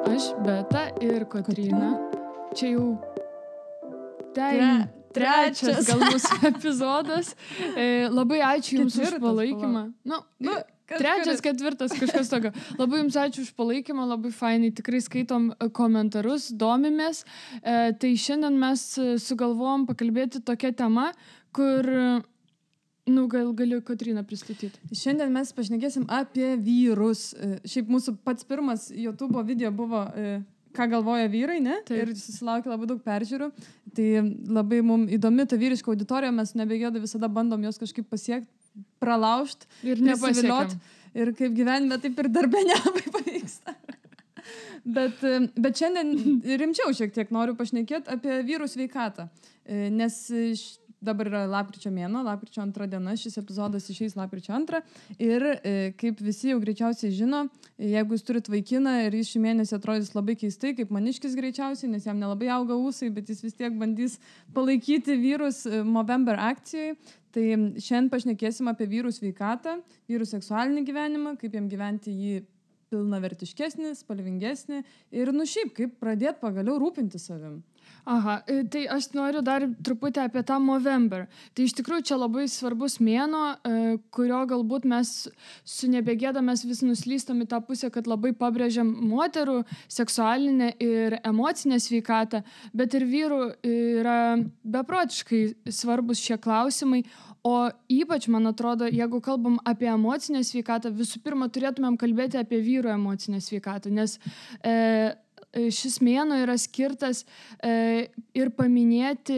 Aš, Beta ir Kotryna. Čia jau trečias gal mūsų epizodas. Labai ačiū Jums už palaikymą. Trečias, ketvirtas, kažkas tokio. Labai Jums ačiū už palaikymą, labai fainai. Tikrai skaitom komentarus, domimės. Tai šiandien mes sugalvojom pakalbėti tokią temą, kur... gal galiu Kotryną pristatyti. Šiandien mes pašnekėsim apie vyrus. Šiaip mūsų pats pirmas YouTube video buvo, ką galvoja vyrai, ne? Taip. Ir susilaukė labai daug peržiūrų. Tai labai mums įdomi ta vyriška auditorija, mes nebegėda visada bandom jos kažkaip pasiekti, pralaužti ir nepasiviliot. Ir kaip gyvenime, taip ir darbe nelabai pavyksta. Bet šiandien rimčiau šiek tiek noriu pašnekėti apie vyrų sveikatą. Nes dabar yra lapkričio mėnuo, lapkričio 2 diena, šis epizodas išeis lapkričio 2. Ir kaip visi jau greičiausiai žino, jeigu jūs turit vaikiną ir jis šį mėnesį atrodys labai keistai, kaip maniškis greičiausiai, nes jam nelabai auga ūsai, bet jis vis tiek bandys palaikyti vyrus Movember akcijai. Tai šiandien pašnekėsim apie vyrų sveikatą, vyrų seksualinį gyvenimą, kaip jam gyventi jį pilnavertiškesnį, spalvingesnį ir šiaip, kaip pradėti pagaliau rūpinti savim. Aha, tai aš noriu dar truputį apie tą Movember. Tai iš tikrųjų čia labai svarbus mėnuo, kurio galbūt mes su nebegėda mes vis nuslystam į tą pusę, kad labai pabrėžiam moterų seksualinę ir emocinę sveikatą, bet ir vyrų yra beprotiškai svarbus šie klausimai. O ypač, man atrodo, jeigu kalbam apie emocinę sveikatą, visų pirma turėtumėm kalbėti apie vyrų emocinę sveikatą, nes šis mėnuo yra skirtas ir paminėti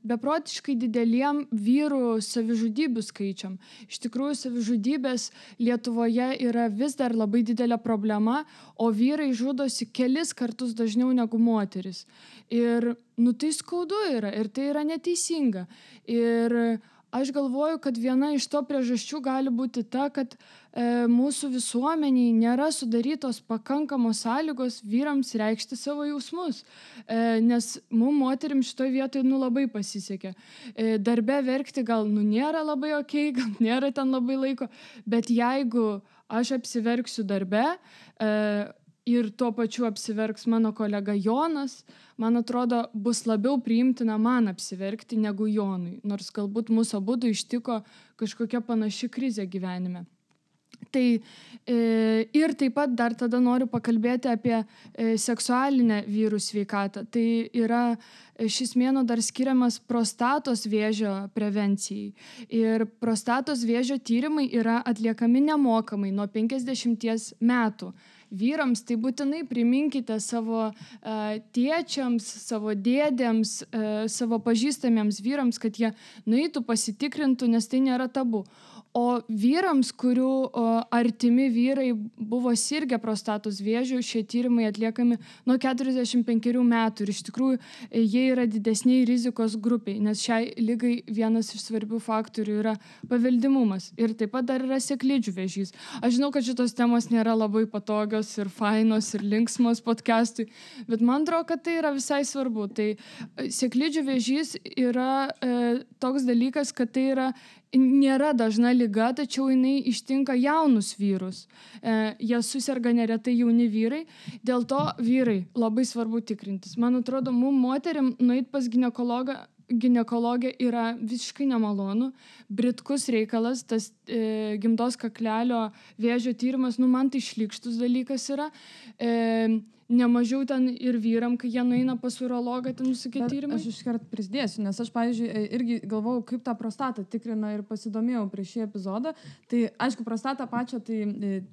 beprotiškai dideliem vyrų savižudybių skaičiam. Iš tikrųjų, savižudybės Lietuvoje yra vis dar labai didelė problema, o vyrai žudosi kelis kartus dažniau negu moteris. Ir tai skaudu yra ir tai yra neteisinga. Ir aš galvoju, kad viena iš to priežasčių gali būti ta, kad mūsų visuomeniai nėra sudarytos pakankamos sąlygos vyrams reikšti savo jausmus. Nes mums moterim šitoj vietoj labai pasisekė. Darbe verkti gal nėra labai okei, gal nėra ten labai laiko, bet jeigu aš apsiverksiu darbe ir tuo pačiu apsiverks mano kolega Jonas, man atrodo, bus labiau priimtina man apsiverkti negu Jonui, nors galbūt mūsų abudu ištiko kažkokia panaši krizė gyvenime. Tai ir taip pat dar tada noriu pakalbėti apie seksualinę vyrų sveikatą. Tai yra šis mėnuo dar skiriamas prostatos vėžio prevencijai. Ir prostatos vėžio tyrimai yra atliekami nemokamai nuo 50 metų. Vyrams tai būtinai priminkite savo tėčiams, savo dėdėms, savo pažįstamiems vyrams, kad jie nueitų pasitikrintų, nes tai nėra tabu. O vyrams, kurių artimi vyrai buvo sirgę prostatos vėžiu, šie tyrimai atliekami nuo 45 metų. Ir iš tikrųjų jie yra didesniai rizikos grupiai, nes šiai lygai vienas iš svarbių faktorių yra paveldimumas. Ir taip pat dar yra sėklidžių vėžys. Aš žinau, kad šitos temos nėra labai patogios ir fainos ir linksmos podcastui, bet man atrodo, kad tai yra visai svarbu. Tai sėklidžių vėžys yra toks dalykas, kad tai nėra dažna liga, tačiau jinai ištinka jaunus vyrus. Jie suserga neretai jauni vyrai, dėl to vyrai labai svarbu tikrintis. Man atrodo, mums moteriam nueit pas ginekologę yra visiškai nemalonu, britkus reikalas, tas gimdos kaklelio vėžio tyrimas, man tai šlykštus dalykas yra. Nemažiau ten ir vyram, kai jie nueina pas urologą, ten visokie tyrimai. Aš iškart prisidėsiu, nes aš, pavyzdžiui, irgi galvojau, kaip tą prostatą tikrina ir pasidomėjau prieš šį epizodą. Tai, aišku, prostatą pačią tai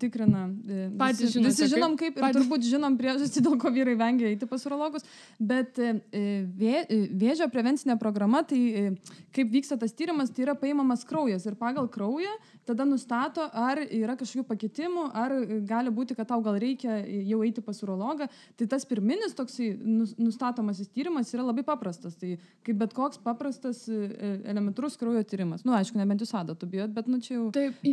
tikrina visi žinom kaip ir turbūt žinom priežastį, dėl ko vyrai vengia eiti pas urologus. Bet vėžio prevencinė programa, tai kaip vyksta tas tyrimas, tai yra paimamas kraujas ir pagal kraują tada nustato, ar yra kažkokių pakitimų, ar gali būti, kad tau gal reikia jau eiti pas urologą. Tai tas pirminis toksai nustatomasis tyrimas yra labai paprastas. Tai kaip bet koks paprastas elementarus kraujo tyrimas. Aišku, nebent jūs adatų bijot, bet čia jau... Taip,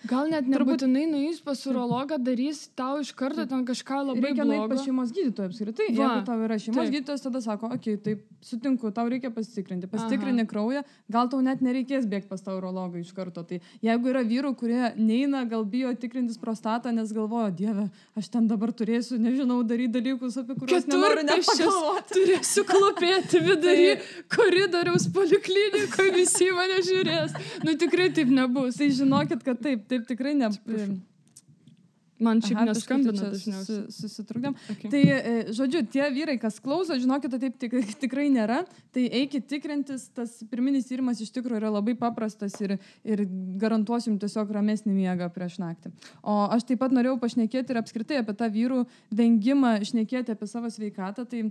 gal net nebūtinai nueis pas urologą, darys tau iš karto ten kažką labai blogo. Reikia nueiti pas šeimos gydytoją apskritai. Jeigu tau yra šeimos gydytojas, tada sako, okei, taip, sutinku, tau reikia pasitikrinti. Pasitikrini kraują, gal tau net nereikės bėgti pas tą urologą iš karto. Tai jeigu yra vyrų, kurie neina, gal bijo tikrintis prostatą, nes galvoja, Dieve, aš ten dabar turėsiu, nežinau, daryti dalykus, apie kuriuos nenoriu nepagalvoti. Turėsiu klopėti vidury koridoriaus poliklinikoje, visi mane žiūrės. Nu tikrai taip nebus. Tai žinokit, kad taip tikrai Man šiaip neskambina dažniausiai. Susitrukdėm. Okay. Tai, žodžiu, tie vyrai, kas klauso, žinokit, taip tikrai nėra. Tai eikit tikrintis, tas pirminis tyrimas iš tikrųjų yra labai paprastas ir garantuosim tiesiog ramesnį miegą prieš naktį. O aš taip pat norėjau pašnekėti ir apskritai apie tą vyrų vengimą šnekėti apie savo sveikatą. Tai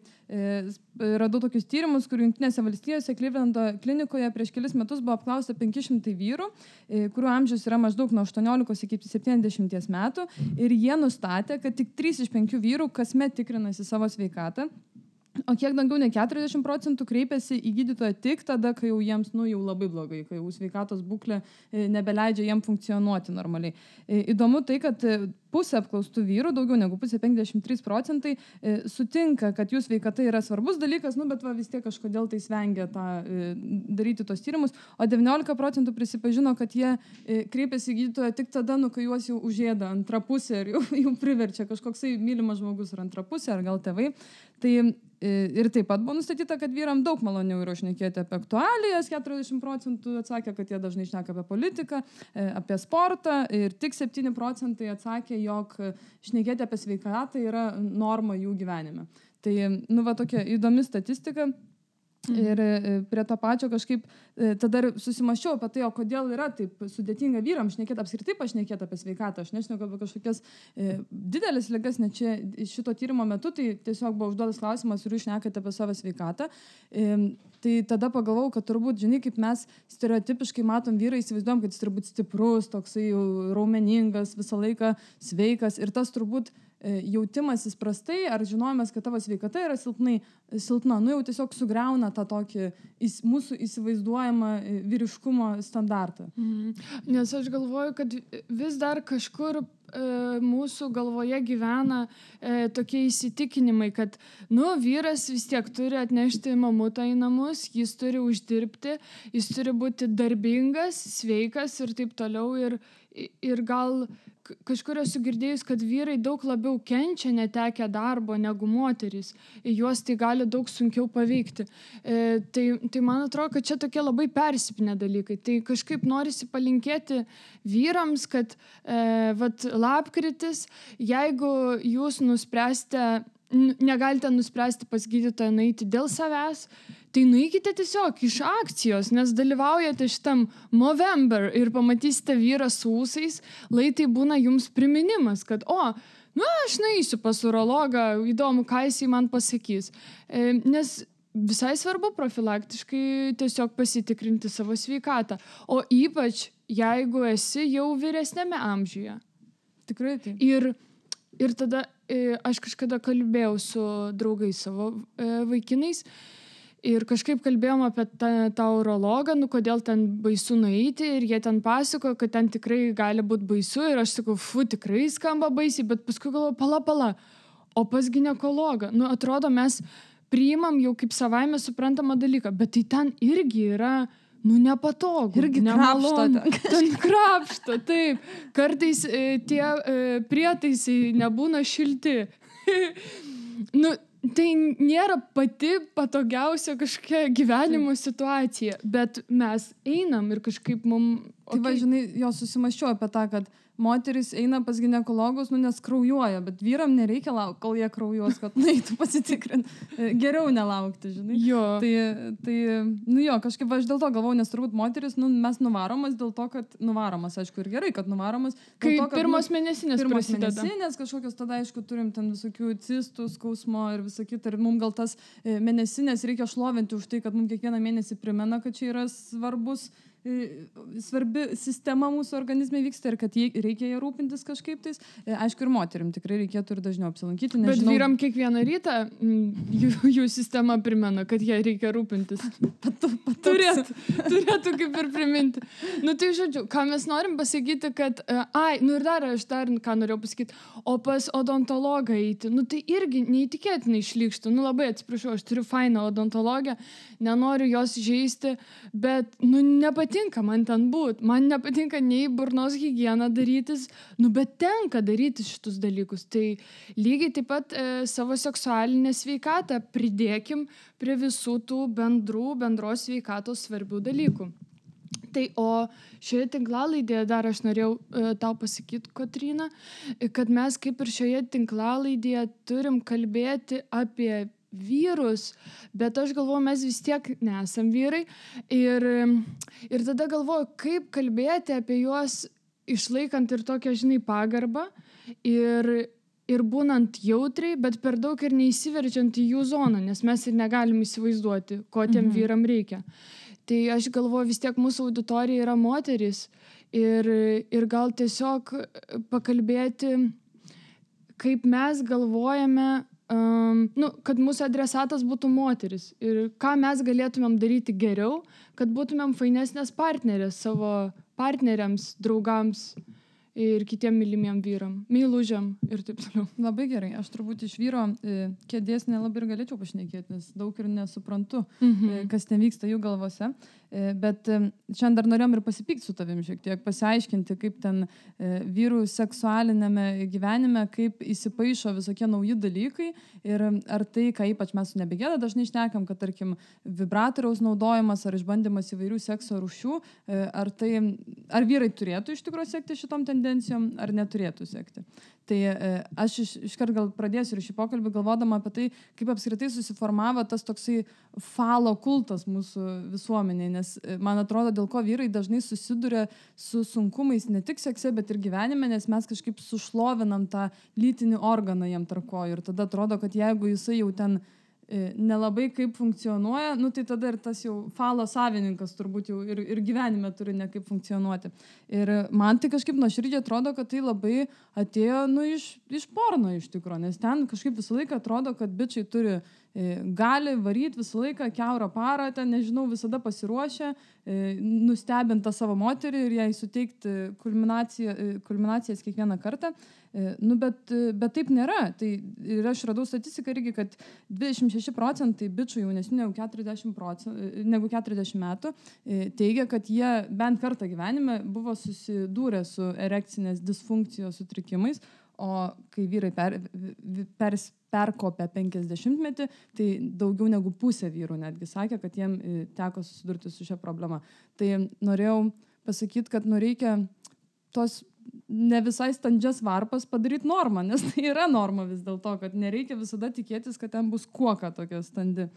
radau tokius tyrimus, kur Jungtinėse valstijose Clevelando klinikoje prieš kelis metus buvo apklausta 500 vyrų, kurių amžius yra maždaug nuo 18 iki 70 metų. Ir jie nustatė, kad tik 3 iš 5 vyrų kasmet tikrinasi savo sveikatą, o kiek daugiau nei 40% kreipiasi į gydytoją tik tada, kai jau jiems jau labai blogai, kai jau sveikatos būklė nebeleidžia jiem funkcionuoti normaliai. Įdomu tai, kad pusė apklaustų vyrų, daugiau negu pusė, 53%, sutinka, kad jų sveikata yra svarbus dalykas, bet vis tiek kažkodėl tai svengia daryti tos tyrimus, o 19% prisipažino, kad jie kreipiasi į gydytoją tik tada, kai juos jau užėda antra pusė ir jau priverčia kažkoksai mylimas žmogus ar antra pusė, ar gal tėvai. Tai ir taip pat buvo nustatyta, kad vyram daug maloniau yra šnekėti apie aktualijas, 40% atsakė, kad jie dažnai šneka apie politiką, apie sportą ir tik 7% atsakė, jog šnekėti apie sveikatą yra norma jų gyvenime. Tai, tokia įdomi statistika. Ir prie to pačio kažkaip tada susimaščiau apie tai, o kodėl yra taip sudėtinga vyrams šnekėti, apskritai pašnekėti apie sveikatą. Aš nešneku apie kažkokias didelės ligas, net čia šito tyrimo metu, tai tiesiog buvo užduotas klausimas, ar jūs šnekate apie savo sveikatą. Tai tada pagalvojau, kad turbūt, žinai, kaip mes stereotipiškai matom vyrą, įsivaizduojam, kad jis turbūt stiprus, toksai raumeningas, visą laiką sveikas ir tas turbūt jautimasis prastai ar žinojimas, kad tavo sveikata yra silpna, jau tiesiog sugriauna tą tokį mūsų įsivaizduojamą vyriškumo standartą. Nes aš galvoju, kad vis dar kažkur mūsų galvoje gyvena tokie įsitikinimai, kad vyras vis tiek turi atnešti mamutą į namus, jis turi uždirbti, jis turi būti darbingas, sveikas ir taip toliau ir gal kažkur esu girdėjus, kad vyrai daug labiau kenčia netekę darbo negu moterys. Juos tai gali daug sunkiau paveikti. Tai man atrodo, kad čia tokie labai persipinę dalykai. Tai kažkaip norisi palinkėti vyrams, kad lapkritis, jeigu jūs negalite nuspręsti pas gydytoją nueiti dėl savęs, tai nueikite tiesiog iš akcijos, nes dalyvaujate šitam Movember ir pamatysite vyrą su ūsais, tai būna jums priminimas, kad aš nueisiu pas urologą, įdomu, ką jisai man pasakys. Nes visai svarbu profilaktiškai tiesiog pasitikrinti savo sveikatą, o ypač jeigu esi jau vyresnėme amžiuje. Tikrai taip. Ir tada aš kažkada kalbėjau su draugais savo vaikinais ir kažkaip kalbėjom apie tą urologą, kodėl ten baisu nueiti ir jie ten pasakojo, kad ten tikrai gali būti baisu ir aš sakau, tikrai skamba baisiai, bet paskui galvoju, pala, o pas ginekologą, atrodo mes priimam jau kaip savaime suprantamą dalyką, bet tai ten irgi yra nepatogu. Irgi krapšto. Ten krapšto, taip. Kartais tie prietaisai nebūna šilti. Tai nėra pati patogiausia kažkokia gyvenimo situacija, bet mes einam ir kažkaip mums... Tai žinai, susimaščiau apie tą, kad moteris eina pas ginekologus, nes kraujuoja, bet vyram nereikia laukti, kol jie kraujuos, kad eitų pasitikrinti. Geriau nelaukti, žinai. Jo. Tai kažkaip aš dėl to galvojau, nes turbūt moteris, mes nuvaromas dėl to, kad nuvaromas, aišku, ir gerai, kad nuvaromas. Kai pirmos mėnesinės prasideda. Pirmos mėnesinės, kažkokios tada, aišku, turim ten visokių cistų, skausmo ir visą kitą. Ir mums gal tas mėnesinės reikia šlovinti už tai, kad mums kiekvieną mėnesį primena, kad čia yra svarbi sistema mūsų organizme vyksta ir kad reikia ją rūpintis kažkaip tais. Aišku, ir moterim tikrai reikėtų ir dažniau apsilankyti. Bet vyram kiekvieną rytą jų sistema primena, kad jie reikia rūpintis. Turėtų kaip ir priminti. Tai žodžiu, ką mes norim pasakyti, kad ir dar ką norėjau pasakyti, o pas odontologą eiti, tai irgi neįtikėtinai šlykštų. Labai atsiprašau, aš turiu fainą odontologę, nenoriu jos žeisti, bet nepatinka nepatinka man ten būt, man nepatinka nei burnos higieną darytis, bet tenka daryti šitus dalykus. Tai lygiai taip pat savo seksualinę sveikatą pridėkim prie visų tų bendros sveikatos svarbių dalykų. Tai o šioje tinklalaidėje dar aš norėjau tau pasakyti, Kotryna, kad mes kaip ir šioje tinklalaidėje turim kalbėti apie vyrus, bet aš galvoju, mes vis tiek nesam vyrai ir tada galvoju, kaip kalbėti apie juos išlaikant ir tokią, pagarbą ir būnant jautriai, bet per daug ir neįsiverčiant į jų zoną, nes mes ir negalim įsivaizduoti, ko tiem vyram reikia. Tai aš galvoju, vis tiek mūsų auditorija yra moteris ir gal tiesiog pakalbėti, kaip mes galvojame, kad mūsų adresatas būtų moteris ir ką mes galėtumėm daryti geriau, kad būtumėm fainesnės partnerės savo partneriams, draugams ir kitiem mylimiem vyram, meilužiam ir taip toliau. Labai gerai, aš turbūt iš vyro kėdės nelabai ir galėčiau pašnekėti, nes daug ir nesuprantu, kas ten vyksta jų galvose. Bet šiandien dar norėjom ir pasipykti su tavim šiek tiek, pasiaiškinti, kaip ten vyrų seksualinėme gyvenime, kaip įsipaišo visokie nauji dalykai ir ar tai, ką ypač mes su Nebegėda dažnai šnekam, kad tarkim vibratoriaus naudojimas ar išbandymas įvairių sekso rūšių, ar vyrai turėtų iš tikrųjų sekti šitom tendencijom, ar neturėtų sekti. Tai aš iškart gal pradėsiu ir šį pokalbį galvodama apie tai, kaip apskritai susiformavo tas toksai falo kultas mūsų visuomenėje, nes man atrodo, dėl ko vyrai dažnai susiduria su sunkumais ne tik sekse, bet ir gyvenime, nes mes kažkaip sušlovinam tą lytinį organą jam tarp kojų ir tada atrodo, kad jeigu jisai jau ten nelabai kaip funkcionuoja, tai tada ir tas jau falo savininkas turbūt jau ir gyvenime turi ne kaip funkcionuoti. Ir man tai kažkaip nuoširdžiai atrodo, kad tai labai atėjo iš porno iš tikrųjų, nes ten kažkaip visą laiką atrodo, kad bičiai gali varyti visą laiką kiaurą parą, ten nežinau, visada pasiruošę, nustebinti savo moterį ir jai suteikti kulminacijas kiekvieną kartą. Bet taip nėra. Tai ir aš radau statistiką irgi, kad 26% bičių jaunesnių negu 40 metų teigia, kad jie bent kartą gyvenime buvo susidūrę su erekcinės disfunkcijos sutrikimais, o kai vyrai perkopė 50-metį, tai daugiau negu pusė vyrų netgi sakė, kad jiem teko susidurti su šia problema. Tai norėjau pasakyti, kad reikia tos ne visai standžias varpas padaryti normą, nes tai yra norma vis dėlto, kad nereikia visada tikėtis, kad ten bus kuoka tokia standi.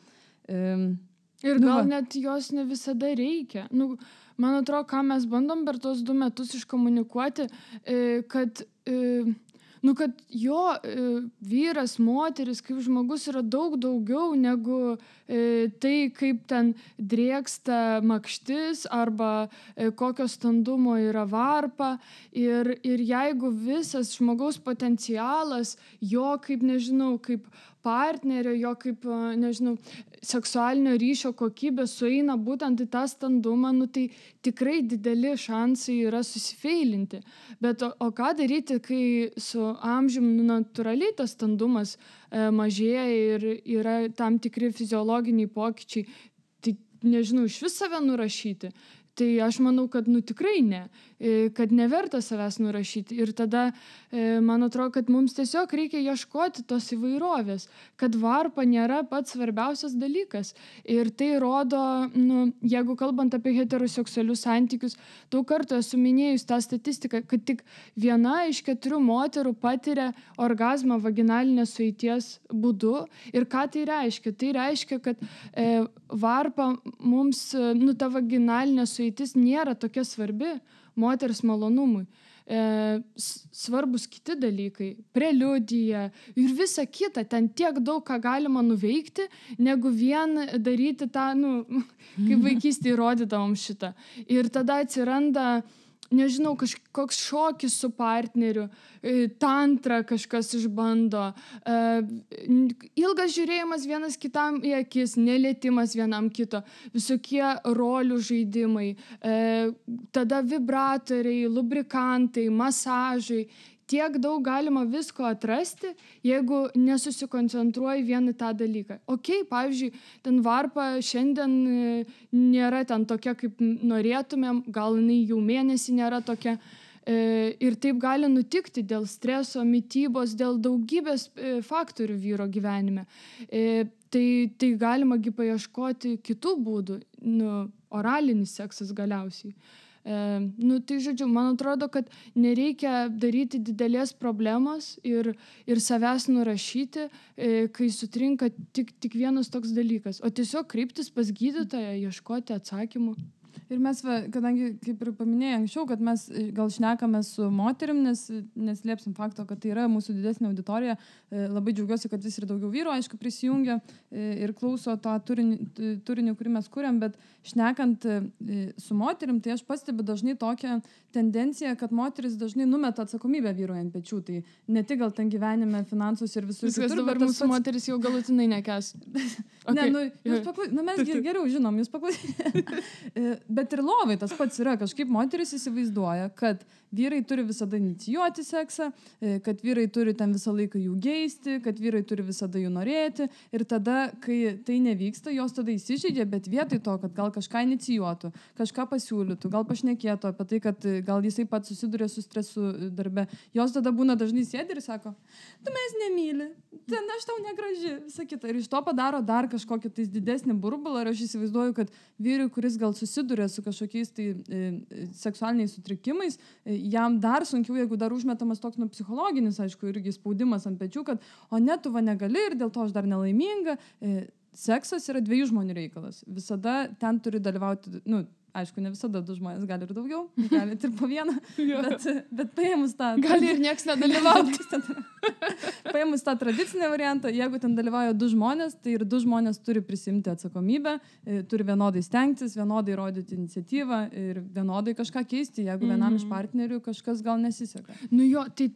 Ir gal net jos ne visada reikia. Man atrodo, ką mes bandom per tos 2 metus iškomunikuoti, kad jo vyras, moteris, kaip žmogus yra daug daugiau negu tai, kaip ten drėksta makštis arba kokio standumo yra varpa. Ir jeigu visas žmogaus potencialas, jo kaip partnerio, jo kaip, seksualinio ryšio kokybė sueina būtent į tą standumą, tai tikrai dideli šansai yra susifeilinti. Bet o ką daryti, kai su amžiumi natūraliai tas standumas mažėja ir yra tam tikri fiziologiniai pokyčiai, tai nežinau, iš vis save nurašyti. Tai aš manau, kad tikrai ne, kad neverta savęs nurašyti. Ir tada man atrodo, kad mums tiesiog reikia ieškoti tos įvairovės, kad varpa nėra pats svarbiausias dalykas. Ir tai rodo, jeigu kalbant apie heteroseksualius santykius, daug kartų esu minėjus tą statistiką, kad tik 1 iš 4 moterų patiria orgazmą vaginalinės sueities būdu. Ir ką tai reiškia? Tai reiškia, kad varpa mums, ta vaginalinė sueitis nėra tokia svarbi moters malonumui. Svarbus kiti dalykai, preliudija ir visa kita, ten tiek daug ką galima nuveikti, negu vien daryti tą, kaip vaikystėje rodydavom šitą. Ir tada atsiranda, nežinau, kažkoks šokis su partneriu, tantra kažkas išbando, ilgas žiūrėjimas vienas kitam į akis, nelietimas vienam kito, visokie rolių žaidimai, tada vibratoriai, lubrikantai, masažai, tiek daug galima visko atrasti, jeigu nesusikoncentruoji vien į tą dalyką. Pavyzdžiui, ten varpa šiandien nėra ten tokia, kaip norėtumėm, gal jinai jau mėnesį nėra tokia. Ir taip gali nutikti dėl streso, mitybos, dėl daugybės faktorių vyro gyvenime. Tai galima paieškoti kitų būdų, oralinis seksas galiausiai. Tai žodžiu, man atrodo, kad nereikia daryti didelės problemos ir savęs nurašyti, kai sutrinka tik vienas toks dalykas, o tiesiog kreiptis pas gydytoją, ieškoti atsakymų. Ir mes, kadangi, kaip ir paminėjai anksčiau, kad mes gal šnekame su moterim, nes neslėpsim fakto, kad tai yra mūsų didesnė auditorija, labai džiaugiuosi, kad vis ir daugiau vyrų, aišku, prisijungia ir klauso tą turinį, kurį mes kuriam, bet šnekant su moterim, tai aš pastebiu dažnai tokią tendenciją, kad moteris dažnai numeta atsakomybę vyrui ant pečių, tai ne tik gal ten gyvenime, finansus ir visur. Viskas dabar mūsų moteris jau galutinai nekęs. Okay. Ne, mes geriau žinom, jūs paklausykite. Bet ir lovai tas pats yra, kažkaip moteris įsivaizduoja, kad vyrai turi visada inicijuoti seksą, kad vyrai turi ten visą laiką jų geisti, kad vyrai turi visada jų norėti ir tada, kai tai nevyksta, jos tada įsižeidžia, bet vietoj to, kad gal kažką inicijuotų, kažką pasiūlytų, gal pašnekėtų apie tai, kad gal jisai pats susiduria su stresu darbe, jos tada būna dažnai sėdi ir sako, tu mes nemyli, ten aš tau negraži, visą kitą. Ir iš to padaro dar kažkokį tais didesnį burbulą ir aš įsivaizduoju, kad vyrui, kuris gal susiduria su kažkokiais tai seksualiniais sutrikimais, jam dar sunkiau, jeigu dar užmetamas toks psichologinis, aišku, irgi spaudimas ant pečių, kad o ne, tu va negali ir dėl to aš dar nelaiminga. Seksas yra 2 žmonių reikalas. Visada ten turi dalyvauti, aišku, ne visada 2 žmonės, gali ir daugiau, gali ir po 1, bet paėmus tą... Gali ir nieks nedalyvauti. Paėmus tą tradicinę variantą, jeigu ten dalyvauja 2 žmonės, tai ir 2 žmonės turi prisimti atsakomybę, turi vienodai stengtis, vienodai rodyti iniciatyvą ir vienodai kažką keisti, jeigu vienam iš partnerių kažkas gal nesiseka. Tai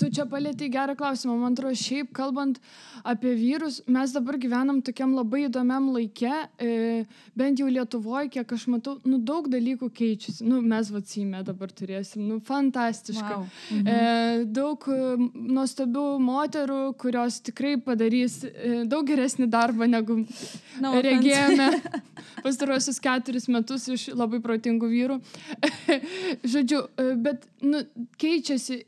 tu čia palietei gerą klausimą. Man atrodo, šiaip kalbant apie vyrus, mes dabar gyvenam tokiam labai įdomiam laike, bent jau Lietuvoje, kiek aš matau, daug dalykų keičiasi. Mes Seime dabar turėsim, fantastiška. Wow. Daug nuostabių moterų, kurios tikrai padarys daug geresnį darbą, negu regėjome pastaruosius 4 metus iš labai protingų vyrų. Žodžiu, bet keičiasi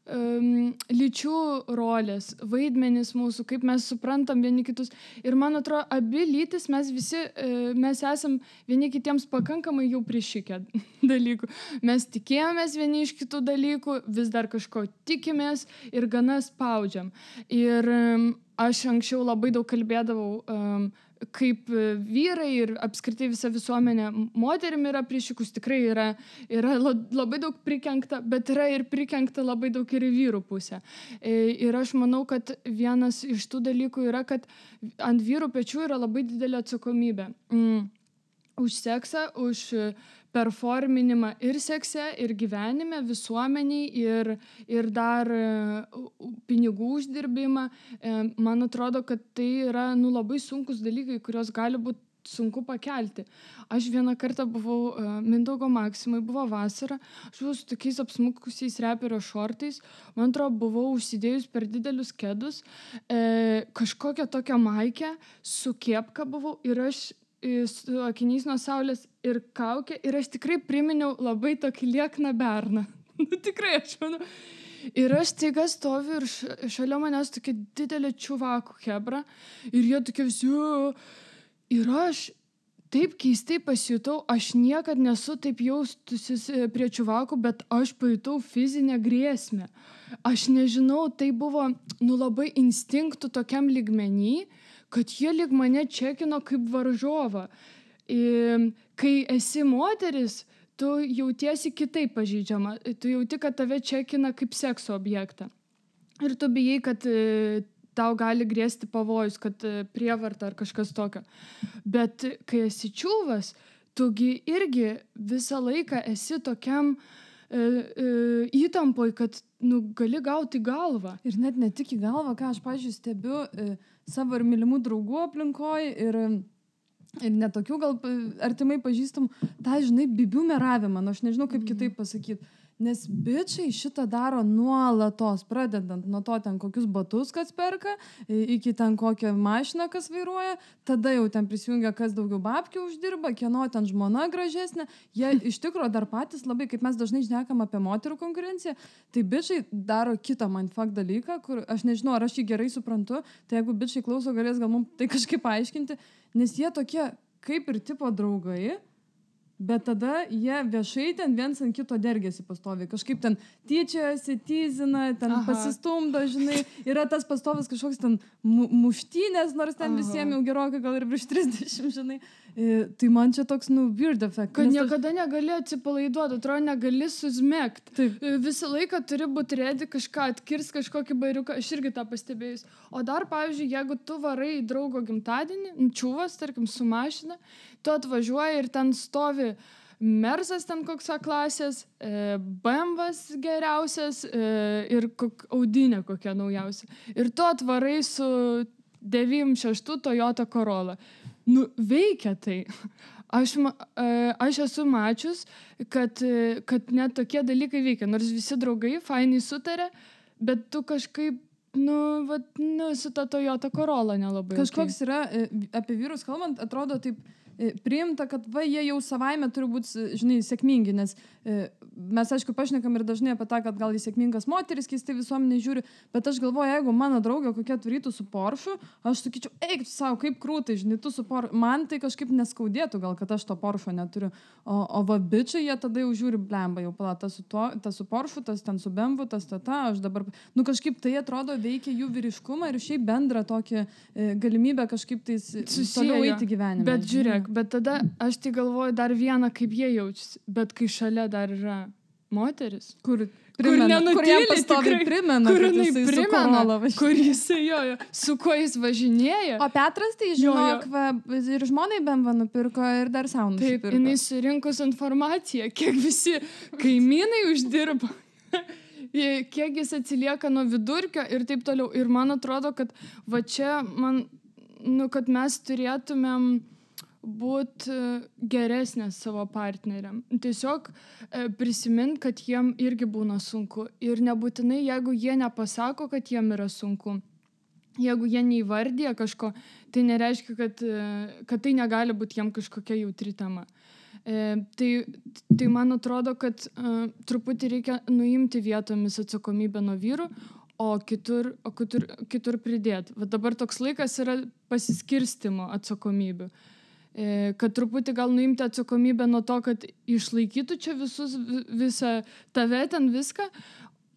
lyčių rolės, vaidmenys mūsų, kaip mes suprantam vieni kitus. Ir man atrodo, abi lytis mes esam vieni kitiems pakankamai jau prišikę dalykų. Mes tikėjomės vieni iš kitų dalykų, vis dar kažko tikimės ir gana spaudžiam. Ir aš anksčiau labai daug kalbėdavau, kaip vyrai ir apskritai visa visuomenė moterim yra prišikus, tikrai yra labai daug prikenkta, bet yra ir prikenkta labai daug ir į vyrų pusę. Ir aš manau, kad vienas iš tų dalykų yra, kad ant vyrų pečių yra labai didelė atsakomybė. Už seksą, už performinimą ir sekse, ir gyvenime, visuomeniai, ir dar pinigų uždirbimą. Man atrodo, kad tai yra labai sunkus dalykai, kurios gali būti sunku pakelti. Aš vieną kartą buvau Mindaugo Maksimai, buvo vasara, aš buvau su tokiais apsmukusiais reperio šortais, man atrodo, buvau užsidėjus per didelius kedus, kažkokią tokią maikę, su kepka buvau ir aš su akiniais nuo saulės ir kaukė ir aš tikrai priminiau labai tokį liekną berną. Tikrai, aš manau. Ir aš staiga stoviu ir šalia manęs tokia didelė čuvakų hebra ir jie tokie visi. Ir aš taip keistai pasijutau, aš niekad nesu taip jaustusis prie čuvakų, bet aš pajutau fizinę grėsmę. Aš nežinau, tai buvo labai instinktų tokiam lygmenį, kad jie lyg mane čekino kaip varžovą. Kai esi moteris, tu jautiesi kitaip pažeidžiama. Tu jauti, kad tave čekina kaip sekso objektą. Ir tu bijai, kad tau gali grėsti pavojus, kad prievarta ar kažkas tokio. Bet kai esi čiuvas, tugi irgi visą laiką esi tokiam įtampoj, kad gali gauti galvą. Ir net ne tik į galvą, ką aš, pavyzdžiui, stebiu savo ir mylimų draugų aplinkoj ir netokių gal artimai pažįstamų, tą, žinai, bibių meravimą, aš nežinau, kaip kitaip pasakyti. Nes bičiai šitą daro nuolatos, pradedant nuo to ten kokius batus kas perka, iki ten kokią mašiną kas vairuoja, tada jau ten prisijungia kas daugiau babkių uždirba, kieno ten žmona gražesnė. Jie iš tikrųjų dar patys labai, kaip mes dažnai šnekam apie moterų konkurenciją, tai bičiai daro kitą mindfuck dalyką, kur aš nežinau, ar aš jį gerai suprantu, tai jeigu bičiai klauso, galės gal mums tai kažkaip paaiškinti, nes jie tokie kaip ir tipo draugai, bet tada jie viešai ten viens ant kito dergėsi pastoviai. Kažkaip ten tyčiojasi, tyzina, ten pasistumdo, žinai. Yra tas pastovas kažkoks ten muštynės, nors ten visiems jau gerokai gal ir virš 30, žinai. Tai man čia toks, weird effect. Kad niekada negali atsipalaiduoti, atrodo, negali susmėgti. Visą laiką turi būti redi kažką, atkirs kažkokį bairiuką. Aš irgi tą pastebėjus. O dar, pavyzdžiui, jeigu tu varai į draugo gimtadienį, čiūvas, tarkim, su mašina, tu atvažiuoji ir ten stovi Mersas ten koks klasės, BMWs geriausias ir Audinė kokia naujausia. Ir tu atvarai su 96 Toyota Corolla. Veikia tai. Aš esu mačius, kad net tokie dalykai veikia. Nors visi draugai fainai sutarė, bet tu kažkaip su ta Toyota Corolla nelabai. Kažkoks yra, apie vyrus kalbant, atrodo taip priimta, kad jie jau savaime turi būti, žinai, sėkmingi, nes mes, aišku, pašnekam ir dažnai apie tą, kad gal į sėkmingas moteris keistai visuomenė žiūri, bet aš galvoju, jeigu mano draugė kokia turytų su Porsche, aš sakyčiau, eik tu savo, kaip krūtai, žinai, tu su Porsche, man tai kažkaip neskaudėtų gal, kad aš to Porsche neturiu, o bičiai, jie tada jau žiūri, blemba, jau pala, tas su Porsche, tas ten su BMW, tas aš dabar, kažkaip tai atrodo veikia jų vyriškumą ir šiaip bendrą tokį galimybę kažkaip tais toliau eiti gyvenime. Bet žiūrėk, bet tada aš tai galvoju dar vieną, kaip jie jaučiasi, bet kai šalia dar yra moteris, kur nenutyli, tikrai primena, kur jisai jojo, su kuo jis važinėja. O Petras tai žinok, ir žmonai BMW nupirko ir dar savo nusipirko. Taip, jinai surinkus informaciją, kiek visi kaimynai uždirba, kiek jis atsilieka nuo vidurkio ir taip toliau. Ir man atrodo, kad va čia kad mes turėtumėm būti geresnės savo partneriam. Tiesiog prisimint, kad jiem irgi būna sunku. Ir nebūtinai, jeigu jie nepasako, kad jiem yra sunku. Jeigu jie neįvardija kažko, tai nereiškia, kad tai negali būti jiem kažkokia jautri tema. Tai man atrodo, kad truputį reikia nuimti vietomis atsakomybę nuo vyrų, o kitur pridėti. Va dabar toks laikas yra pasiskirstimo atsakomybių. Kad truputį gal nuimti atsakomybę nuo to, kad išlaikytų čia visą tave ten viską,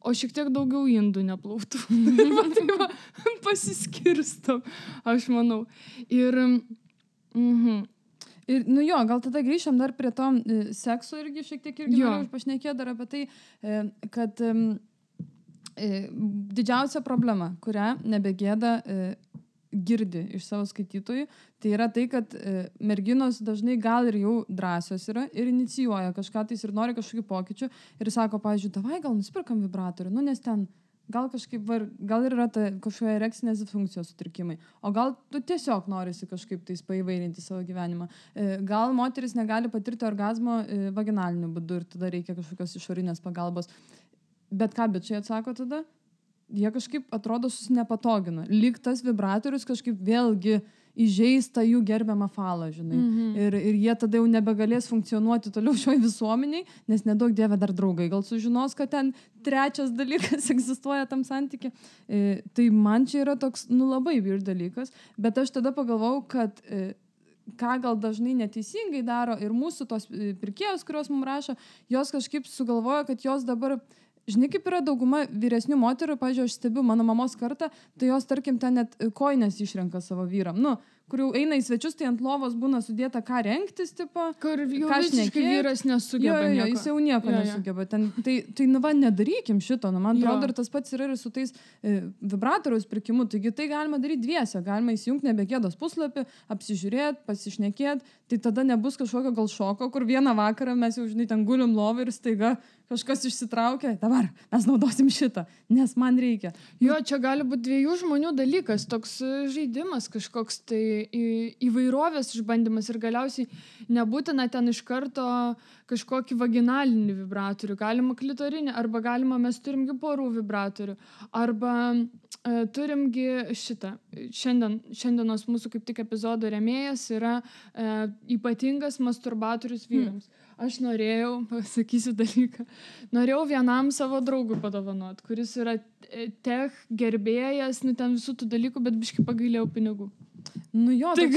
o šiek tiek daugiau indų neplautų. Tai pasiskirstom, aš manau. Ir gal tada grįžtam dar prie to sekso irgi šiek tiek irgi noriu pašnekėti dar apie tai, kad didžiausia problema, kurią nebegėda girdi iš savo skaitytojų, tai yra tai, kad merginos dažnai gal ir jau drąsios yra ir inicijuoja kažką tais ir nori kažkokių pokyčių ir sako, pavyzdžiui, davai gal nusipirkam vibratorių, nes ten gal kažkaip, gal ir yra ta kažkokia erekcinės disfunkcijos sutrikimai, o gal tu tiesiog norisi kažkaip tais paįvairinti savo gyvenimą. Gal moteris negali patirti orgazmo vaginaliniu būdu ir tada reikia kažkokios išorinės pagalbos. Bet ką bičiai atsako tada? Jie kažkaip atrodo susinepatogina. Lyg tas vibratorius kažkaip vėlgi įžeista jų gerbiamą falą, žinai. Ir jie tada jau nebegalės funkcionuoti toliau šioj visuomeniai, nes nedaug dieve dar draugai gal sužinos, kad ten trečias dalykas egzistuoja tam santyki. Tai man čia yra toks, labai weird dalykas, bet aš tada pagalvojau, kad ką gal dažnai neteisingai daro ir mūsų tos pirkėjos, kurios mums rašo, jos kažkaip sugalvoja, kad jos dabar žinai, kaip yra dauguma vyresnių moterų, pavyzdžiui, aš stebiu mano mamos kartą, tai jos, tarkim, ten net kojines išrenka savo vyram. Kur jau eina į svečius, tai ant lovos būna sudėta, ką rengtis, tipo. Kur jau visiškai vyras nesugeba nieko. Jis jau nieko nesugeba. Tai nedarykim šito. Man atrodo, ir tas pats yra ir su tais vibratoriaus pirkimu. Taigi tai galima daryti dviese. Galima įsijungti nebegėdos puslapį, apsižiūrėti, pasišnekėti. Tai tada nebus kažkokio gal šoko, kur vieną vakarą mes jau, žinai, ten gulim lovą ir staiga kažkas išsitraukia. Dabar mes naudosim šitą, nes man reikia. Jo, čia gali būti dviejų žmonių dalykas. Toks žaidimas kažkoks tai įvairovės išbandymas ir galiausiai nebūtina ten iš karto kažkokį vaginalinį vibratorių, galima klitorinį, arba galima mes turimgi porų vibratorių, arba turimgi šitą. Šiandienos mūsų kaip tik epizodo rėmėjas yra ypatingas masturbatorius vyrams. Aš norėjau, pasakysiu dalyką, norėjau vienam savo draugui padovanot, kuris yra tech gerbėjas, ten visų tų dalykų, bet biškai pagailėjau pinigų. Nu jo, tai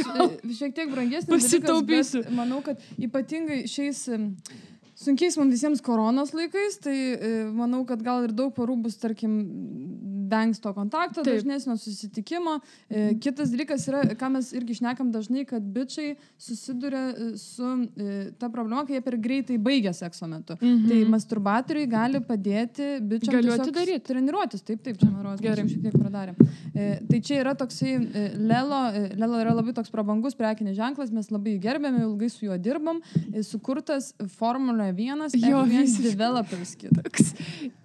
šiek tiek brangesnis dalykas, bet manau, kad ypatingai šiais sunkiais mums visiems koronos laikais, tai manau, kad gal ir daug porų bus, tarkim, vengs to kontakto, dažnesnio susitikimo. Kitas dalykas yra, ką mes irgi šnekam dažnai, kad bičiai susiduria su ta problema, kai jie per greitai baigia sekso metu. Tai masturbatoriai gali padėti bičiam tiesiog treniruotis. Taip, čia man rodos, mes šiek tiek pradarėm. Tai čia yra toksai Lelo yra labai toks prabangus prekinis ženklas, mes labai gerbėme, ilgai su juo dirbam, sukurtas Formula 1 F1 Developers Kit.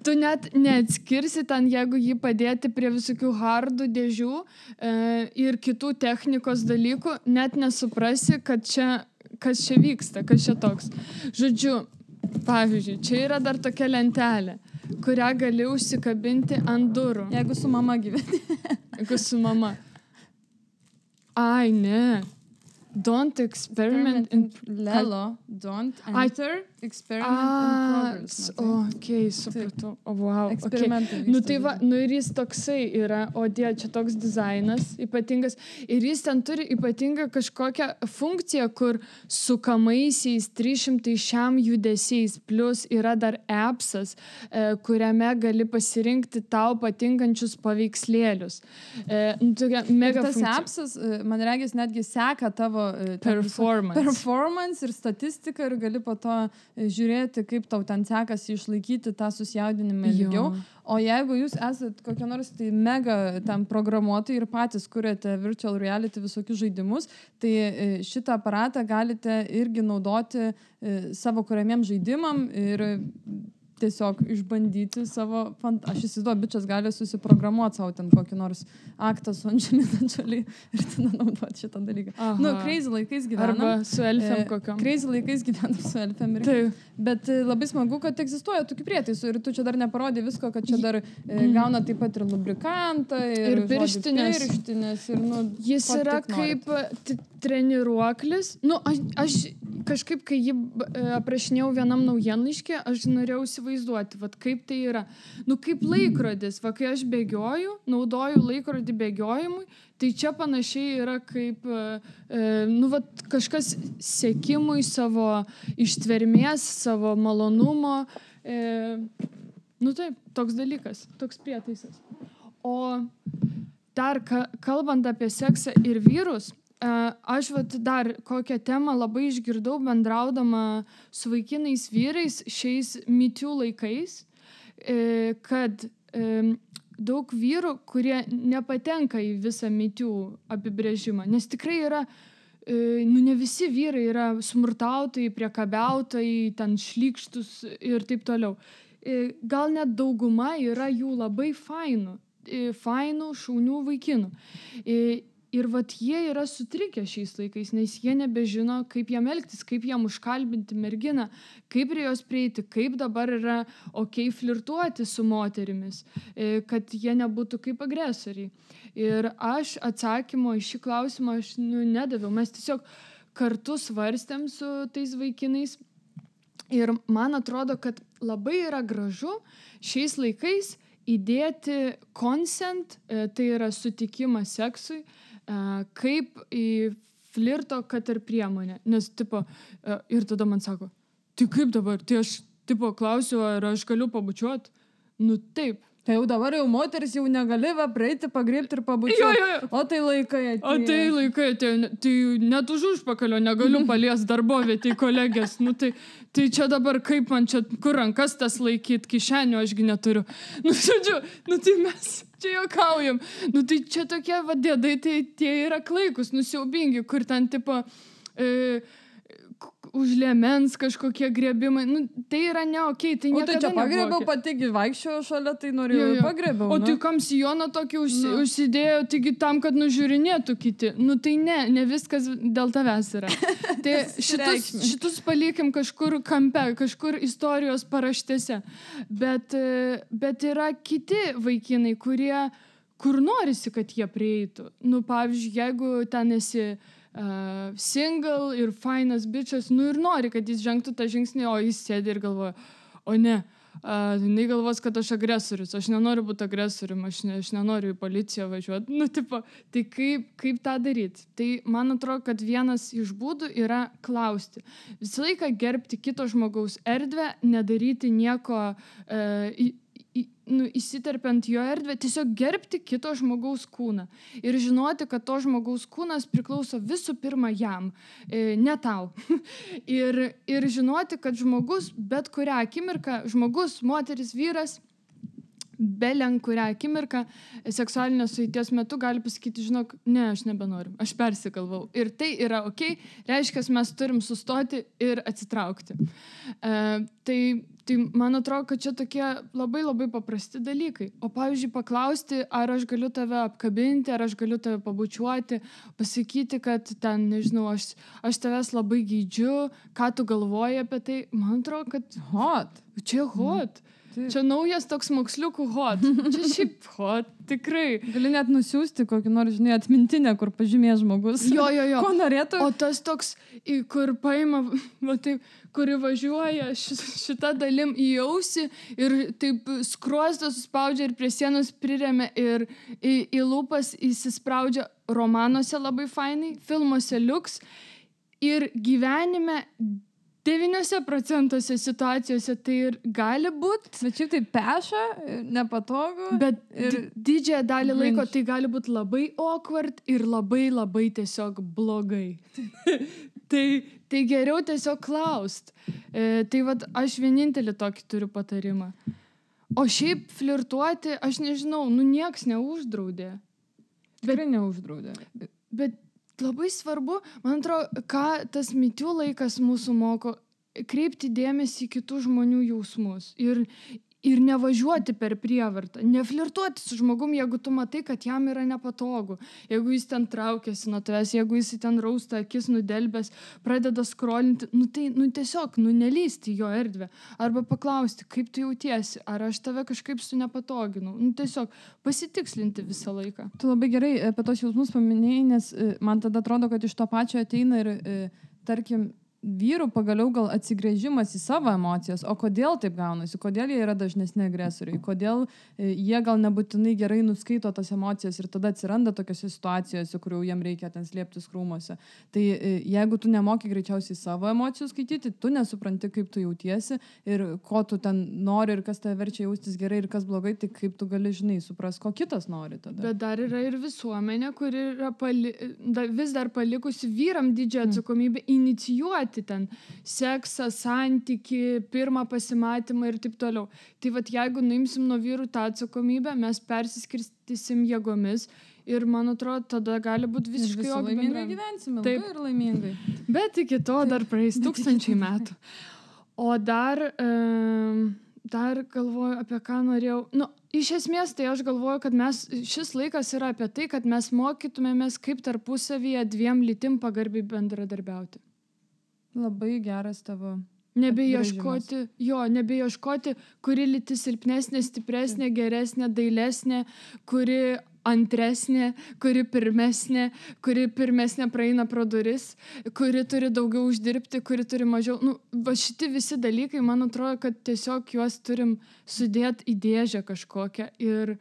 Tu net neatskirsi ten, jeigu jį padėti prie visokių hardų dėžių ir kitų technikos dalykų, net nesuprasi, kas čia vyksta, kas čia toks. Žodžiu, pavyzdžiui, čia yra dar tokia lentelė, kurią gali užsikabinti ant durų. Jeigu su mama gyveni. Jeigu su mama. Ai, ne. Don't experiment in... Lelo, don't enter, experiment in progress. Okay, supratau. Wow. Eksperimentai. Okay. Tai va, ir jis toksai yra, čia toks dizainas ypatingas. Ir jis ten turi ypatingą kažkokią funkciją, kur sukamaisiais 300 šiam judesiais, plus yra dar appsas, kuriame gali pasirinkti tau patinkančius paveikslėlius. Mega tas appsas, man regis, netgi seka tavo performance ir statistiką ir gali po to žiūrėti, kaip tau ten sekasi išlaikyti tą susijaudinimą ilgiau. O jeigu jūs esat kokie nors tai mega ten programuotojai ir patys kuriate virtual reality visokius žaidimus, tai šitą aparatą galite irgi naudoti savo kuriamiem žaidimam ir tiesiog išbandyti savo... Aš įsivaizduoju, bičias gali susiprogramuoti savo ten kokį nors aktą su Angelina Jolie ir tada naudoti šitą dalyką. Crazy laikais gyvenam. Arba su elfėm kokiam. Crazy laikais gyvenam su elfėm. Bet labai smagu, kad egzistuoja tokių prietaisų ir tu čia dar neparodė visko, kad čia dar gauna taip pat ir lubrikantą, ir pirštinės. Jis yra kaip treniruoklis. Aš kažkaip, kai jį aprašinėjau vienam naujienlaiškį, aš norėjau įsivaizduoti, kaip tai yra. Kaip laikrodis, kai aš bėgioju, naudoju laikrodį bėgiojimui, tai čia panašiai yra kaip kažkas sekimui savo ištvermės, savo malonumo. Taip, toks dalykas, toks prietaisas. O dar kalbant apie seksą ir vyrus, aš dar kokią temą labai išgirdau bendraudama su vaikinais vyrais šiais Me Too laikais, kad daug vyrų, kurie nepatenka į visą Me Too apibrėžimą, nes tikrai yra, ne visi vyrai yra smurtautojai, priekabiautojai, ten šlykštus ir taip toliau. Gal net dauguma yra jų labai fainų, šaunių vaikinų. Ir jie yra sutrikę šiais laikais, nes jie nebežino, kaip jam elgtis, kaip jam užkalbinti merginą, kaip prie jos prieiti, kaip dabar yra flirtuoti su moterimis, kad jie nebūtų kaip agresoriai. Ir aš atsakymo į šį klausimą nedaviau. Mes tiesiog kartu svarstėm su tais vaikinais. Ir man atrodo, kad labai yra gražu šiais laikais įdėti consent, tai yra sutikimas seksui, kaip į flirto, kad ir priemonę. Nes, ir tada man sako, tai kaip dabar? Tai aš, klausiu, ar aš galiu pabučiuoti? Taip. Tai jau dabar jau moteris jau negali praeiti, pagriebti ir pabučiuoti. O tai laikai atėjo. Tai net už užpakalio negaliu paliesti darbovietį kolegės. Tai čia dabar kaip man čia, kur rankas tas laikyti, kišenio ašgi neturiu. Žodžiu, tai mes čia juokaujam. Tai čia tokie dėdai, tai tie yra klaikus, nusiaubingi, kur ten už liemens kažkokie griebimai, nu, tai yra ne okei, tai niekada nebuvo. O tai čia pagrėbiau, okay. Pati vaikščiojo šalia, tai norėjau pagrėbiau. O tai kam sijoną tokį užsidėjo, taigi tam, kad nužiūrinėtų kiti. Nu tai ne viskas dėl tavęs yra. Tai šitus palikim kažkur kampe, kažkur istorijos paraštėse. Bet yra kiti vaikinai, kur norisi, kad jie prieitų. Nu, pavyzdžiui, jeigu ten esi single ir fainas bičas, nu ir nori, kad jis žengtų tą žingsnį, o jis sėdi ir galvoja, o ne, jinai galvos, kad aš agresorius, aš nenoriu būti agresorium, aš nenoriu į policiją važiuoti. Nu, tipo, tai kaip tą daryti? Tai man atrodo, kad vienas iš būdų yra klausti. Visą laiką gerbti kito žmogaus erdvę, nedaryti nieko įsiterpiant jo erdvę, tiesiog gerbti kito žmogaus kūną. Ir žinoti, kad to žmogaus kūnas priklauso visų pirma jam, ne tau. ir žinoti, kad žmogus, bet kurią akimirką, žmogus, moteris, vyras, belen kurią akimirką seksualinės sueities metu gali pasakyti, žinok, ne, aš nebenoriu, aš persigalvau. Ir tai yra okei, reiškia, mes turim sustoti ir atsitraukti. Tai man atrodo, kad čia tokie labai labai paprasti dalykai. O pavyzdžiui, paklausti, ar aš galiu tave apkabinti, ar aš galiu tave pabučiuoti, pasakyti, kad ten, nežinau, aš tavęs labai geidžiu, ką tu galvoji apie tai. Man atrodo, kad hot. Čia hot. Čia naujas toks moksliukų hot. Čia šiaip hot, tikrai. Gali net nusiųsti kokį nors, žinai, atmintinę, kur pažymės žmogus. Jo. Ko norėtų? O tas toks, kur paima, taip, kuri važiuoja šitą dalim į ausį ir taip skruostą suspaudžia ir prie sienos priremia ir į lūpas įsispraudžia. Romanuose labai fainai, filmuose liuks ir gyvenime 9% situacijose tai ir gali būti. Bet šiaip tai peša, nepatogu. Bet didžiąją dalį laiko tai gali būti labai awkward ir labai labai tiesiog blogai. tai geriau tiesiog klaust. Tai vat aš vienintelį tokį turiu patarimą. O šiaip flirtuoti, aš nežinau, nieks neuždraudė. Tikrai neuždraudė. Bet labai svarbu, man atrodo, ką tas MeToo laikas mūsų moko, kreipti dėmesį į kitų žmonių jausmus ir nevažiuoti per prievartą, neflirtuoti su žmogum, jeigu tu matai, kad jam yra nepatogu, jeigu jis ten traukiasi nuo tavęs, jeigu jis ten rausta akis nudelbęs, pradeda skrolinti, tiesiog, nelysti jo erdvę, arba paklausti, kaip tu jautiesi, ar aš tave kažkaip nepatoginau, tiesiog pasitikslinti visą laiką. Tu labai gerai apie tos jausmus paminėjai, nes man tada atrodo, kad iš to pačio ateina ir, tarkim, vyrų pagaliau gal atsigręžimas į savo emocijas, o kodėl taip gaunasi, kodėl jie yra dažnesni agresoriai, kodėl jie gal nebūtinai gerai nuskaito tas emocijas ir tada atsiranda tokiose situacijose, kur jau jiem reikia ten slėptis krūmuose. Tai jeigu tu nemoki greičiausiai savo emocijų skaityti, tu nesupranti, kaip tu jautiesi ir ko tu ten nori ir kas tave verčia jaustis gerai ir kas blogai, tai kaip tu gali, žinai, supras, ko kitas nori tada. Bet dar yra ir visuomenė, kuri yra vis dar palikusi vyram didžiąją atsakomybę inicijuoti ten seksą, santykį, pirmą pasimatymą ir taip toliau. Tai vat jeigu nuimsim nuo vyrų tą atsakomybę, mes persiskirstysim jėgomis ir man atrodo, tada gali būti visiškai laimingai gyvensime, ilgai ir laimingai. Bet iki to dar praeis 1000 metų. O dar galvoju, apie ką norėjau. Iš esmės, tai aš galvoju, kad šis laikas yra apie tai, kad mes mokytumėmės, kaip tarpusavyje dviem lytim pagarbiai bendradarbiauti. Labai geras tavo nebeieškoti, kuri lytis silpnesnė, stipresnė, geresnė, dailesnė, kuri antresnė, kuri pirmesnė praeina pro duris, kuri turi daugiau uždirbti, kuri turi mažiau. Šiti visi dalykai, man atrodo, kad tiesiog juos turim sudėti į dėžę kažkokią ir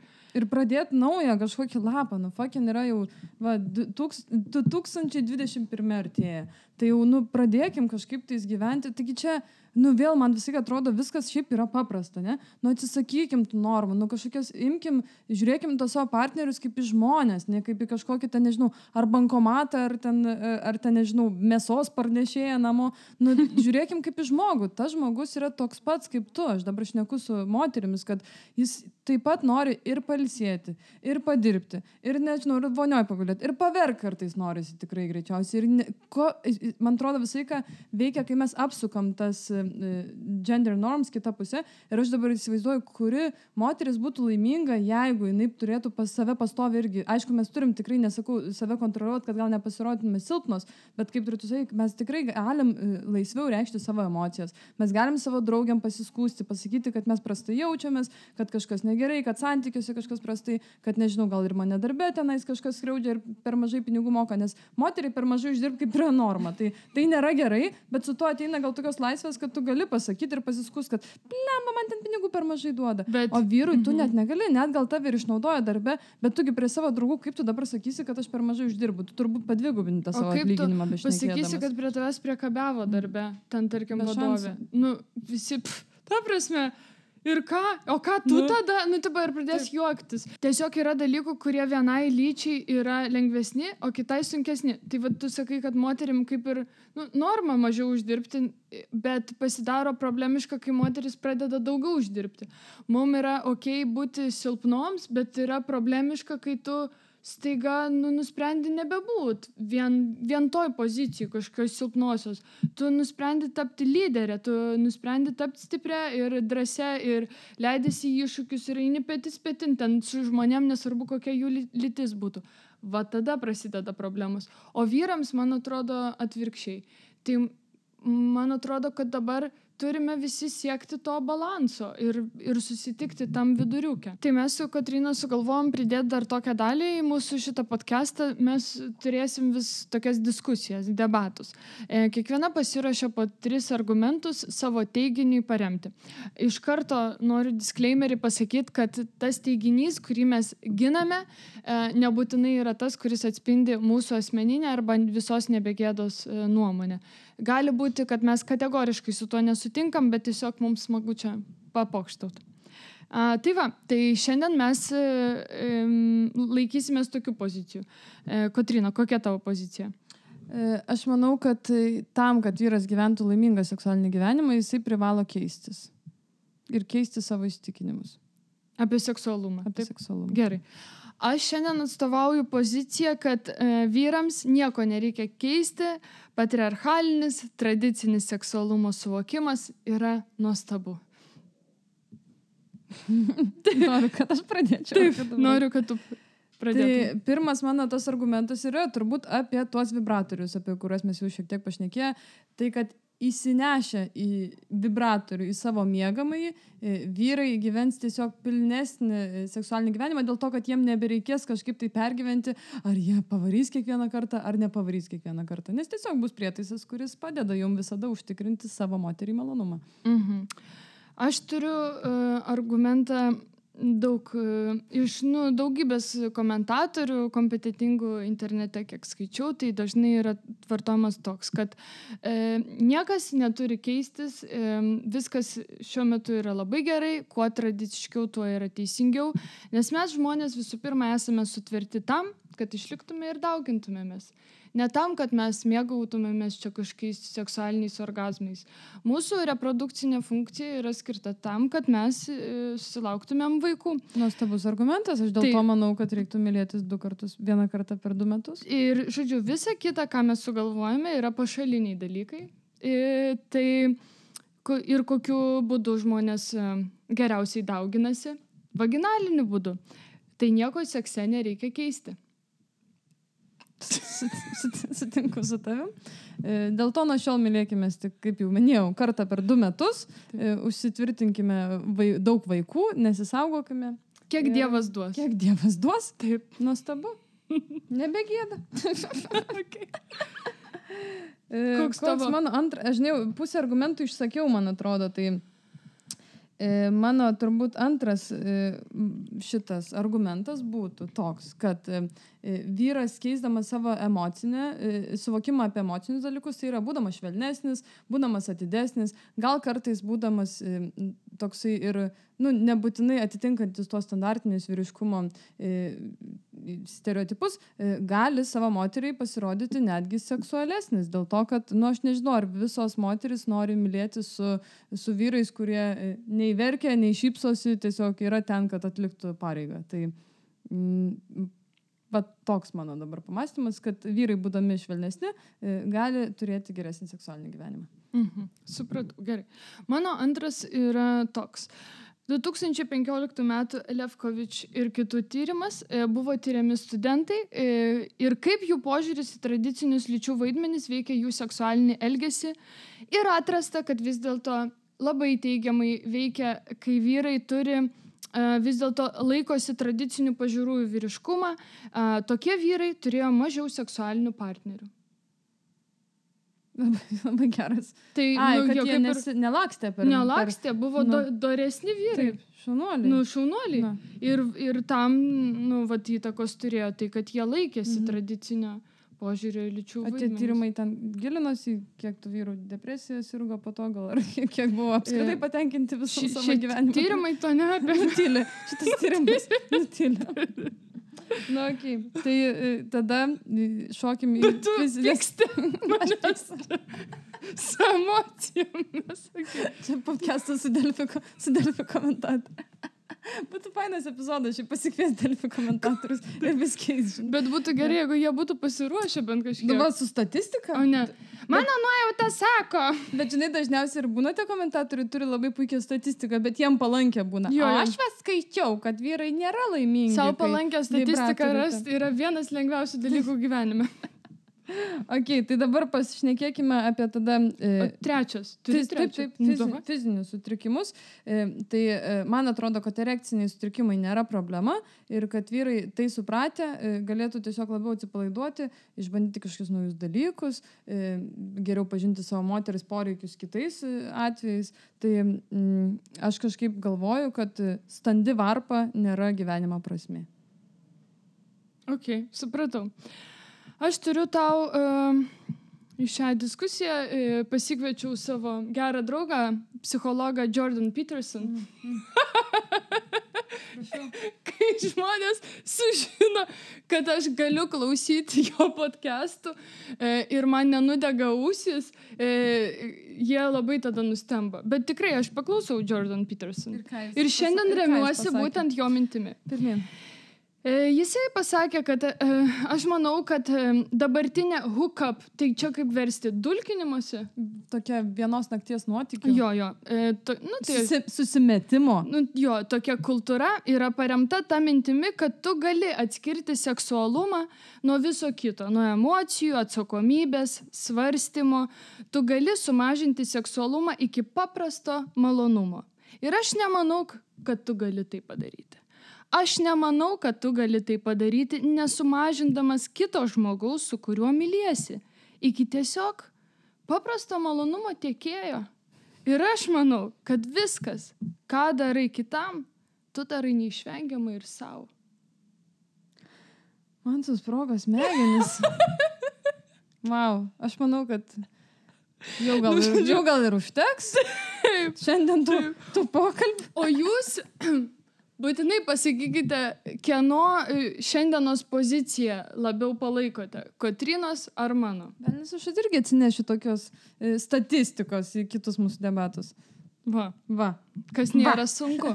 pradėti naują kažkokį lapą. Fucking yra jau 2021 artėja. Tai jau, pradėkim kažkaip tais gyventi. Taigi čia, vėl man visai atrodo, viskas šiaip yra paprasta, ne? Atsisakykim tų normų, kažkokias žiūrėkim to savo partnerius kaip į žmonės, ne kaip į kažkokį, nežinau, ar bankomatą, ar ten, nežinau, mėsos parnešėją namo. Žiūrėkim kaip į žmogų. Tas žmogus yra toks pats kaip tu. Aš dabar šneku su moterimis, kad jis taip pat nori ir pailsėti, ir padirbti, ir, nežinau, ir vonioj pagulėti, ir paverk kartais norisi tikrai greičiausiai. Ir man atrodo visą laiką veikia, kai mes apsukam tas gender norms kitą pusę ir aš dabar įsivaizduoju, kuri moteris būtų laiminga, jeigu jinai turėtų pas save pastovi irgi. Aišku, mes turim tikrai, nesakau, save kontroliuoti, kad gal nepasirodytume silpnos, bet kaip turėtų sakyti, mes tikrai galim laisviau reikšti savo emocijas. Mes galim savo draugiam pasiskūsti, pasakyti, kad mes prastai jaučiamės, kad kažkas negerai, kad santykiuose kažkas prastai, kad nežinau, gal ir mane darbe tenais kažkas skriaudžia ir per mažai pinigų moka, nes moteriai per mažai uždirbti kaip yra norma. Tai nėra gerai, bet su to ateina gal tokios laisvės, kad tu gali pasakyti ir pasiskūs, kad blemba, man ten pinigų per mažai duoda. O vyrui tu net negali, net gal tave ir išnaudoja darbe, bet tugi prie savo draugų, kaip tu dabar sakysi, kad aš per mažai uždirbu, tu turbūt padvigubini tą savo atlyginimą bešnekėdamas. Pasakysi, kad prie tavęs priekabiavo darbe, ten tarkim vadovė. Nu, visi, ta prasme, ir ką? O ką tu tada? Nu, tipo, ir pradės juoktis. Tiesiog yra dalykų, kurie vienai lyčiai yra lengvesni, o kitai sunkesni. Tai vad tu sakai, kad moterim kaip ir norma mažiau uždirbti, bet pasidaro problemiška, kai moteris pradeda daugiau uždirbti. Mums yra okei būti silpnoms, bet yra problemiška, kai tu staiga nusprendi nebebūt vien toj pozicijai kažkokios silpnosios. Tu nusprendi tapti lyderė, tu nusprendi tapti stiprią ir drąsią ir leidėsi į iššūkius ir eini petis petin ten su žmonėm, nesvarbu kokia jų lytis būtų. Va tada prasideda problemos. O vyrams, man atrodo, atvirkščiai. Tai man atrodo, kad dabar turime visi siekti to balanso ir susitikti tam viduriuke. Tai mes su Kotryna sugalvojom pridėti dar tokią dalį į mūsų šitą podcastą. Mes turėsim vis tokias diskusijas, debatus. Kiekviena pasiruošia po 3 argumentus savo teiginiui paremti. Iš karto noriu disclaimerį pasakyti, kad tas teiginys, kurį mes giname, nebūtinai yra tas, kuris atspindi mūsų asmeninę arba visos nebegėdos nuomonę. Gali būti, kad mes kategoriškai su tuo nesutinkam, bet tiesiog mums smagu čia papokštauti. Tai va, tai šiandien mes laikysimės tokių pozicijų. Kotryna, kokia tavo pozicija? Aš manau, kad tam, kad vyras gyventų laimingą seksualinį gyvenimą, jisai privalo keistis. Ir keisti savo įsitikinimus. Apie seksualumą. Apie seksualumą. Gerai. Aš šiandien atstovauju poziciją, kad vyrams nieko nereikia keisti, patriarchalinis, tradicinis seksualumo suvokimas yra nuostabu. Noriu, kad aš pradėčiau. Taip, noriu, kad tu pradėtum. Tai pirmas mano tas argumentas yra turbūt apie tuos vibratorius, apie kuriuos mes jau šiek tiek pašnekėję. Tai, kad įsinešę į vibratorių, į savo miegamąjį, vyrai gyvens tiesiog pilnesnį seksualinį gyvenimą dėl to, kad jiem nebereikės kažkaip tai pergyventi, ar jie pavarys kiekvieną kartą, ar nepavarys kiekvieną kartą. Nes tiesiog bus prietaisas, kuris padeda jum visada užtikrinti savo moterį malonumą. Aš turiu argumentą iš daugybės komentatorių kompetentingų internete, kiek skaičiau, tai dažnai yra vartojamas toks, kad niekas neturi keistis, viskas šiuo metu yra labai gerai, kuo tradiciškiau, tuo yra teisingiau, nes mes žmonės visų pirma esame sutverti tam, kad išliktume ir daugintumėmės. Ne tam, kad mes mėgautumėmės čia kažkokiais seksualiniais orgazmais. Mūsų reprodukcinė funkcija yra skirta tam, kad mes susilauktumėm vaikų. Nuostabus argumentas, aš dėl to manau, kad reiktų mylėtis 2 kartus, 1 kartą per 2 metus. Ir, žodžiu, visa kita, ką mes sugalvojame, yra pašaliniai dalykai. Ir kokiu būdu žmonės geriausiai dauginasi? Vaginaliniu būdu. Tai nieko sekse nereikia keisti. Sutinku su tavim. Dėl to nuo šiol mylėkimės, tik, kaip jau minėjau, kartą per 2 metus, užsitvirtinkime daug vaikų, nesisaugokime. Kiek Dievas duos. Kiek Dievas duos? Taip. Nuostabu. Nebegėda. Okay. Koks mano aš žinau, pusę argumentų išsakiau, man atrodo, tai mano turbūt antras šitas argumentas būtų toks, kad vyras keisdamas savo emocinę, suvokimą apie emocinius dalykus, tai yra būdamas švelnesnis, būdamas atidesnis, gal kartais būdamas toksai ir nebūtinai atitinkantis tos standartinius vyriškumo stereotipus, gali savo moteriai pasirodyti netgi seksualesnis. Dėl to, kad, aš nežinau, ar visos moteris nori mylėti su vyrais, kurie nei verkia, nei šypsosi, tiesiog yra ten, kad atliktų pareigą. Tai va toks mano dabar pamąstymas, kad vyrai būdami švelnesni gali turėti geresnį seksualinį gyvenimą. Supratau, gerai. Mano antras yra toks. 2015 metų Lefkovič ir kitų tyrimas buvo tyriami studentai ir kaip jų požiūris į tradicinius lyčių vaidmenis veikia jų seksualinį elgesį ir atrasta, kad vis dėlto labai teigiamai veikia, kai vyrai turi vis dėlto laikosi tradicinių pažiūrų į vyriškumą, tokie vyrai turėjo mažiau seksualinių partnerių. Labai geras. Tai, kad jie nelakstė per... Nelakstė, buvo doresni vyrai. Taip, šaunuoliai. Šaunuoliai. Ir tam, vat įtakos turėjo tai, kad jie laikėsi tradicinio požiūrio į lyčių vaidmenis. Tie tyrimai ten gilinosi, kiek tų vyrų depresijos sirgo po to, gal ar kiek buvo apskritai patenkinti visų savo gyvenimą. Tyrimai to neapė. Nutylė. Šitas tyrimas nutylė. Na, okei. Tai tada šokim į fizinės... manęs su emocijomis. Čia podcastas su Delfi komentatoriu. Būtų fainas epizodas, šiaip pasikvies Delfi komentatorius ir viskiais. Bet būtų gerai, jeigu jie būtų pasiruošę bent kažkiek. Dabar su statistika? O ne. Mano nuojauta sako. Bet žinai, dažniausiai ir būna tie komentatoriai turi labai puikią statistiką, bet jiem palankę būna. Jo. Aš skaičiau, kad vyrai nėra laimingi. Savo palankę statistiką rasti yra vienas lengviausių dalykų gyvenime. Ok, tai dabar pasišnekėkime apie tada... Trečias. Fizinius sutrikimus. Tai man atrodo, kad erekciniai sutrikimai nėra problema ir kad vyrai tai supratę galėtų tiesiog labiau atsipalaiduoti, išbandyti kažkokius naujus dalykus, geriau pažinti savo moteris poreikius kitais atvejais. Tai aš kažkaip galvoju, kad standi varpa nėra gyvenimo prasmė. Ok, supratau. Aš turiu tau į šią diskusiją pasikviečiau savo gerą draugą, psichologą Jordan Peterson. Kai žmonės sužino, kad aš galiu klausyti jo podcastų ir man nenudega ausis, jie labai tada nustemba. Bet tikrai aš paklausau Jordan Peterson. Ir šiandien remiuosi būtent jo mintimi. Pirmyn. Jisai pasakė, kad aš manau, kad dabartinė hookup, tai čia kaip versti dulkinimuose. Tokia vienos nakties nuotykių. Jo. Susimetimo. Jo, tokia kultūra yra paremta ta mintimi, kad tu gali atskirti seksualumą nuo viso kito, nuo emocijų, atsakomybės, svarstymo. Tu gali sumažinti seksualumą iki paprasto malonumo. Ir aš nemanau, kad tu gali tai padaryti. Aš nemanau, kad tu gali tai padaryti, nesumažindamas kito žmogaus, su kuriuo myliesi, iki tiesiog paprasto malonumo tiekėjo. Ir aš manau, kad viskas, ką darai kitam, tu darai neišvengiamai ir savo. Man susprogo smegenis. Wow, aš manau, kad jau gal ir užteks. Šiandien tų pokalbį. O jūs... Būtinai pasakykite, kieno šiandienos poziciją labiau palaikote, Kotrynos ar mano? Nes aš irgi atsinešiu tokios statistikos į kitus mūsų debatus. Va. Kas nėra sunku.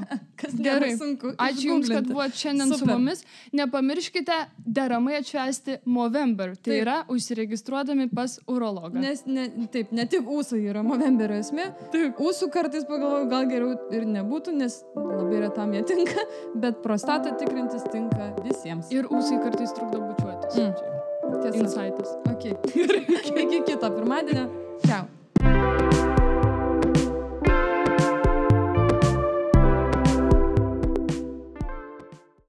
Gerai. Sunku. Ačiū Jums, kad buvote šiandien su mumis. Nepamirškite deramai atšvęsti Movember. Tai yra užsiregistruodami pas urologą. Nes ne tik ūsai yra Movemberio esmė. Taip. Ūsų kartais pagalvoju, gal geriau ir nebūtų, nes labai retam jie tinka, bet prostatą tikrintis tinka visiems. Ir ūsai kartais trukdo bučiuotis. Tiesa. Insightas. Okay. Iki kito pirmadienio.